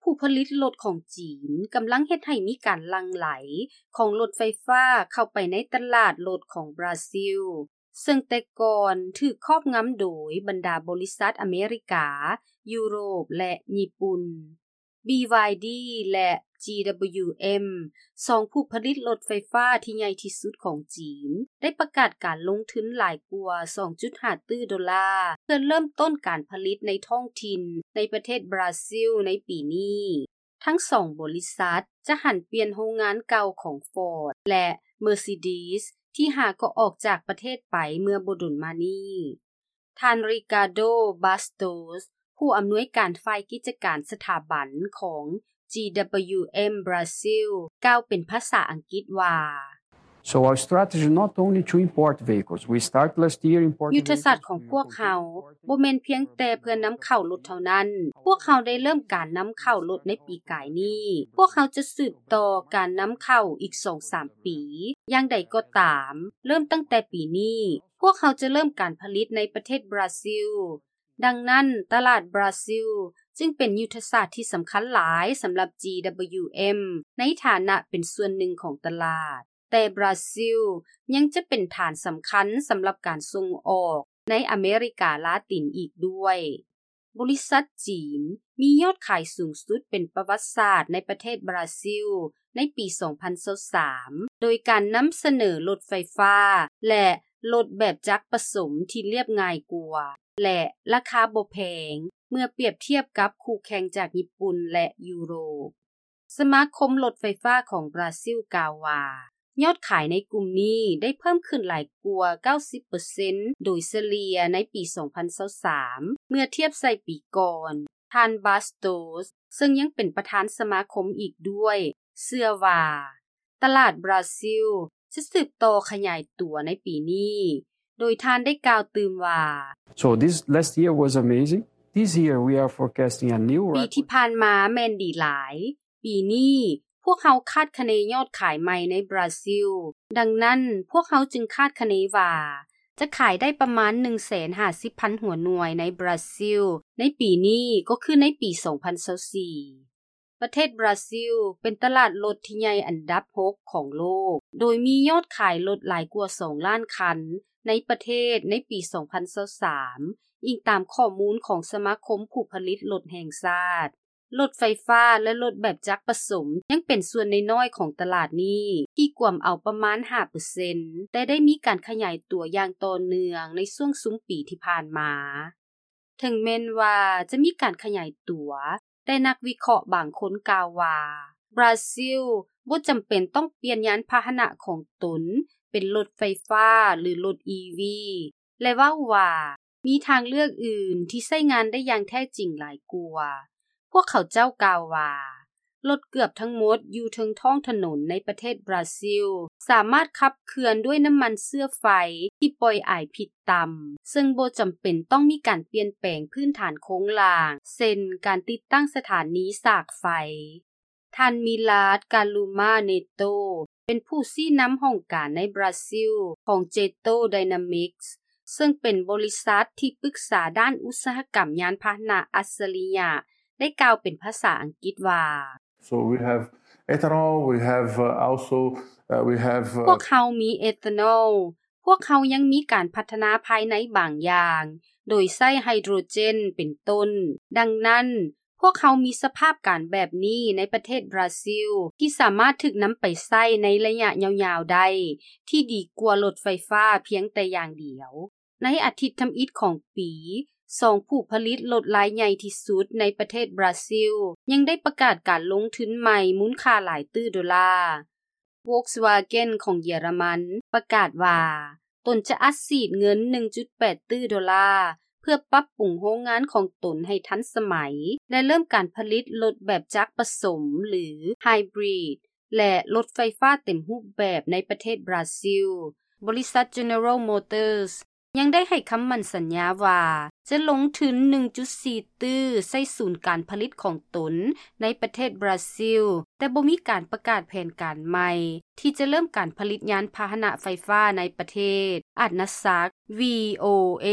ຜູ້ຜະລິດລົດຂອງຈີນກຳລັງເຮັດໃຫ້ມີການຫຼັ່ງໄຫຼຂອງລົດໄຟຟ້າເຂົ້າໄປໃນຕະຫຼາດລົດຂອງບຣາຊິລ, ເຊິ່ງແຕ່ກ່ອນຖືກຄອບງຳໂດຍບັນດາບໍລິສັດອາເມລິກາ, ຢູໂຣບ ແລະ ຍີ່ປຸ່ນ. ບີວາຍດີ ແລະ ຈີດັບເບິນຢູເອັມ ສອງຜູ້ຜະລິດລົດໄຟຟ້າທີ່ໃຫຍ່ທີ່ສຸດຂອງຈີນ ໄດ້ປະກາດການລົງທຶນຫຼາຍກວ່າສອງຈຸດຫ້າຕື້ໂດລາ ເພື່ອເລີ່ມຕົ້ນການຜະລິດໃນທ້ອງຖິ່ນໃນປະເທດບຣາຊິລໃນປີນີ້. ທັງສອງບໍລິສັດຈະຫັນປ່ຽນໂຮງງານເກົ່າຂອງ Ford ແລະ Mercedes ທີ່ຫາກໍອອກຈາກປະເທດໄປເມື່ອບໍ່ດົນມານີ້. ທ່ານ Ricardo Bastos ຜູ້ອຳນວຍການຝ່າຍກິດຈະການສະຖາບັນຂອງ ຈີດັບເບິນຢູເອັມ ບຣາຊິລ ກ່າວເປັນພາສາອັງກິດວ່າ So our strategy not only to import vehicles. We start last year importing ຍຸດທະສາດຂອງພວກເຮົາບໍ່ແມ່ນພຽງແຕ່ເພື່ອນຳເຂົ້າລົດເທົ່ານັ້ນ. ພວກເຮົາໄດ້ເລີ່ມການນຳເຂົ້າລົດໃນປີກາຍນີ້. ພວກເຮົາຈະສືບຕໍ່ການນຳເຂົ້າອີກສອງສາມປີ. ຢ່າງໃດກໍຕາມ, ເລີ່ມຕັ້ງແຕ່ປີນີ້, ພວກເຮົາຈະເລີ່ມການຜະລິດໃນປະເທດບຣາຊິລ. ດັ່ງນັ້ນ, ຕະຫຼາດບຣາຊິລຈຶ່ງເປັນຍຸດທະສາດທີ່ສຳຄັນຫຼາຍສຳລັບ ຈີດັບເບິນຢູເອັມ ໃນຖານະເປັນສ່ວນໜຶ່ງຂອງຕະຫຼາດ. ແຕ່ບຣາຊິລຍັງຈະເປັນຖານສຳຄັນສຳລັບການສົ່ງອອກໃນອາເມລິກາລາຕິນອີກດ້ວຍ. ບໍລິສັດຈີນມີຍອດຂາຍສູງສຸດເປັນປະຫວັດສາດໃນປະເທດບຣາຊິລໃນປີສອງພັນຊາວສາມ ໂດຍການນຳສະເໜີລົດໄຟຟ້າ ແລະ ລົດແບບຈັກປະສົມທີ່ລຽບງ່າຍກວ່າ ແລະ ລາຄາບໍ່ແພງເມື່ອປຽບທຽບກັບຄູ່ແຂ່ງຈາກຍີ່ປຸ່ນ ແລະ ຢູໂຣບ. ສະມາຄົມລົດໄຟຟ້າຂອງບຣາຊິລກ່າວວ່າ ຍອດຂາຍໃນກຸ່ມນີ້ໄດ້ເພີ່ມຂຶ້ນຫຼາຍກວ່າເກົ້າສິບເປີເຊັນໂດຍສະເລ່ຍໃນປີສອງພັນຊາວສາມ ເມື່ອທຽບໃສ່ປີກ່ອນ. ທ່ານ Bastos ເຊິ່ງຍັງເປັນປະທານສະມາຄົມອີກດ້ວຍ ເຊື່ອວ່າຕະຫຼາດບຣາຊິລຈະສືບຕໍ່ຂະຫຍາຍຕົວໃນປີນີ້, ໂດຍທ່ານໄດ້ກ່າວຕື່ມວ່າ So this last year was amazing. This year we are forecasting a new ປີ record. ທີ່ຜ່ານມາແມ່ນດີຫຼາຍ. ປີນີ້ພວກເຮົາຄາດຄະເນຍອດຂາຍໃໝ່ໃນບຣາຊິລ. ດັ່ງນັ້ນ, ພວກເຮົາຈຶ່ງຄາດຄະເນວ່າຈະຂາຍໄດ້ປະມານໜຶ່ງແສນຫ້າສິບພັນຫົວໜ່ວຍໃນບຣາຊິລໃນປີນີ້ ກໍຄືໃນປີສອງພັນຊາວສີ່. ປະເທດບຣາຊິລເປັນຕະຫຼາດລົດທີ່ໃຫຍ່ອັນດັບຫົກຂອງໂລກ, ໂດຍມີຍອດຂາຍລົດຫຼາຍກວ່າສອງລ້ານຄັນໃນປະເທດໃນປີສອງພັນຊາວສາມ, ອີງຕາມຂໍ້ມູນຂອງສະມາຄົມຜູ້ຜະລິດລົດແຫ່ງຊາດ. ລົດໄຟຟ້າ ແລະ ລົດແບບຈັກປະສົມຍັງເປັນສ່ວນນ້ອຍໆຂອງຕະຫຼາດນີ້ ທີ່ກວມເອົາປະມານຫ້າເປີເຊັນ, ແຕ່ໄດ້ມີການຂະຫຍາຍຕົວຢ່າງຕໍ່ເນື່ອງໃນຊ່ວງຊຸມປີທີ່ຜ່ານມາ. ເຖິງແມ່ນວ່າຈະມີການຂະຫຍາຍຕົວ, ແຕ່ນັກວິເຄາະບາງຄົນກ່າວວ່າ ບຣາຊິລບໍ່ຈຳເປັນຕ້ອງປ່ຽນຍານພາຫະນະຂອງຕົນເປັນລົດໄຟຟ້າ ຫຼື ລົດ ອີ ວີ ແລະ ເວົ້າວ່າມີທາງເລືອກອື່ນທີ່ໃຊ້ງານໄດ້ຢ່າງແທ້ຈິງຫຼາຍກວ່າ. ພວກເຂົາເຈົ້າກ່າວວ່າ ລົດເກືອບທັງໝົດຢູ່ເທິງທ້ອງຖະໜົນໃນປະເທດບຣາຊິລ ສາມາດຂັບເຄື່ອນດ້ວຍນ້ຳມັນເຊື້ອໄຟທີ່ປ່ອຍອາຍພິດຕ່ຳ, ເຊິ່ງບໍ່ຈຳເປັນຕ້ອງມີການປ່ຽນແປງພື້ນຖານໂຄງລ່າງ, ເຊັ່ນ ການຕິດຕັ້ງສະຖານີສາກໄຟ. ທ່ານ Milad Karuma Neto ເປັນຜູ້ຊີ້ນຳຫ້ອງການໃນບຣາຊິລຂອງ Jeito Dynamics ເຊິ່ງເປັນບໍລິສັດທີ່ປຶກສາດ້ານອຸດສາຫະກຳຍານພາຫະນະອັດສະລິຍະ ໄດ້ກ່າວເປັນພາສາອັງກິດວ່າ So we have ethanol, we have, uh, also, uh, we have, uh, ພວກເຮົາມີເອທານອລ, ພວກເຮົາຍັງມີການພັດທະນາພາຍໃນບາງຢ່າງ ໂດຍໃຊ້ໄຮໂດຣເຈນເປັນຕົ້ນ. ດັ່ງນັ້ນ, ພວກເຮົາມີສະພາບການແບບນີ້ໃນປະເທດບຣາຊິລ ທີ່ສາມາດຖືກນຳໄປໃຊ້ໃນໄລຍະຍາວໆໄດ້ ທີ່ດີກວ່າລົດໄຟຟ້າພຽງແຕ່ຢ່າງດຽວ. ໃນອາທິດທຳອິດຂອງປີ, ສອງຜູ້ຜະລິດລົດລາຍໃຫຍ່ທີ່ສຸດໃນປະເທດບຣາຊິລ ຍັງໄດ້ປະກາດການລົງທຶນໃໝ່ມູນຄ່າຫຼາຍຕື້ໂດລາ. Volkswagen ຂອງເຢຍລະມັນປະກາດວ່າ ຕົນຈະອັດສີດເງິນໜຶ່ງຈຸດແປດຕື້ໂດລາ ເພື່ອປັບປຸງໂຮງງານຂອງຕົນໃຫ້ທັນສະໄໝ ແລະ ເລີ່ມການຜະລິດລົດແບບຈັກປະສົມ ຫຼື Hybrid ແລະ ລົດໄຟຟ້າເຕັມຮູບແບບໃນປະເທດບຣາຊິລ. ບໍລິສັດ General Motors ຍັງໄດ້ໃຫ້ຄຳໝັ້ນສັນຍາວ່າ ຈະລົງທຶນໜຶ່ງຈຸດສີ່ຕື້ໃສ່ສູນການຜະລິດຂອງຕົນໃນປະເທດບຣາຊິລ, ແຕ່ບໍ່ມີການປະກາດແຜນການໃໝ່ທີ່ຈະເລີ່ມການຜະລິດຍານພາຫະນະໄຟຟ້າໃນປະເທດ. ອັດນະສັກ VOA.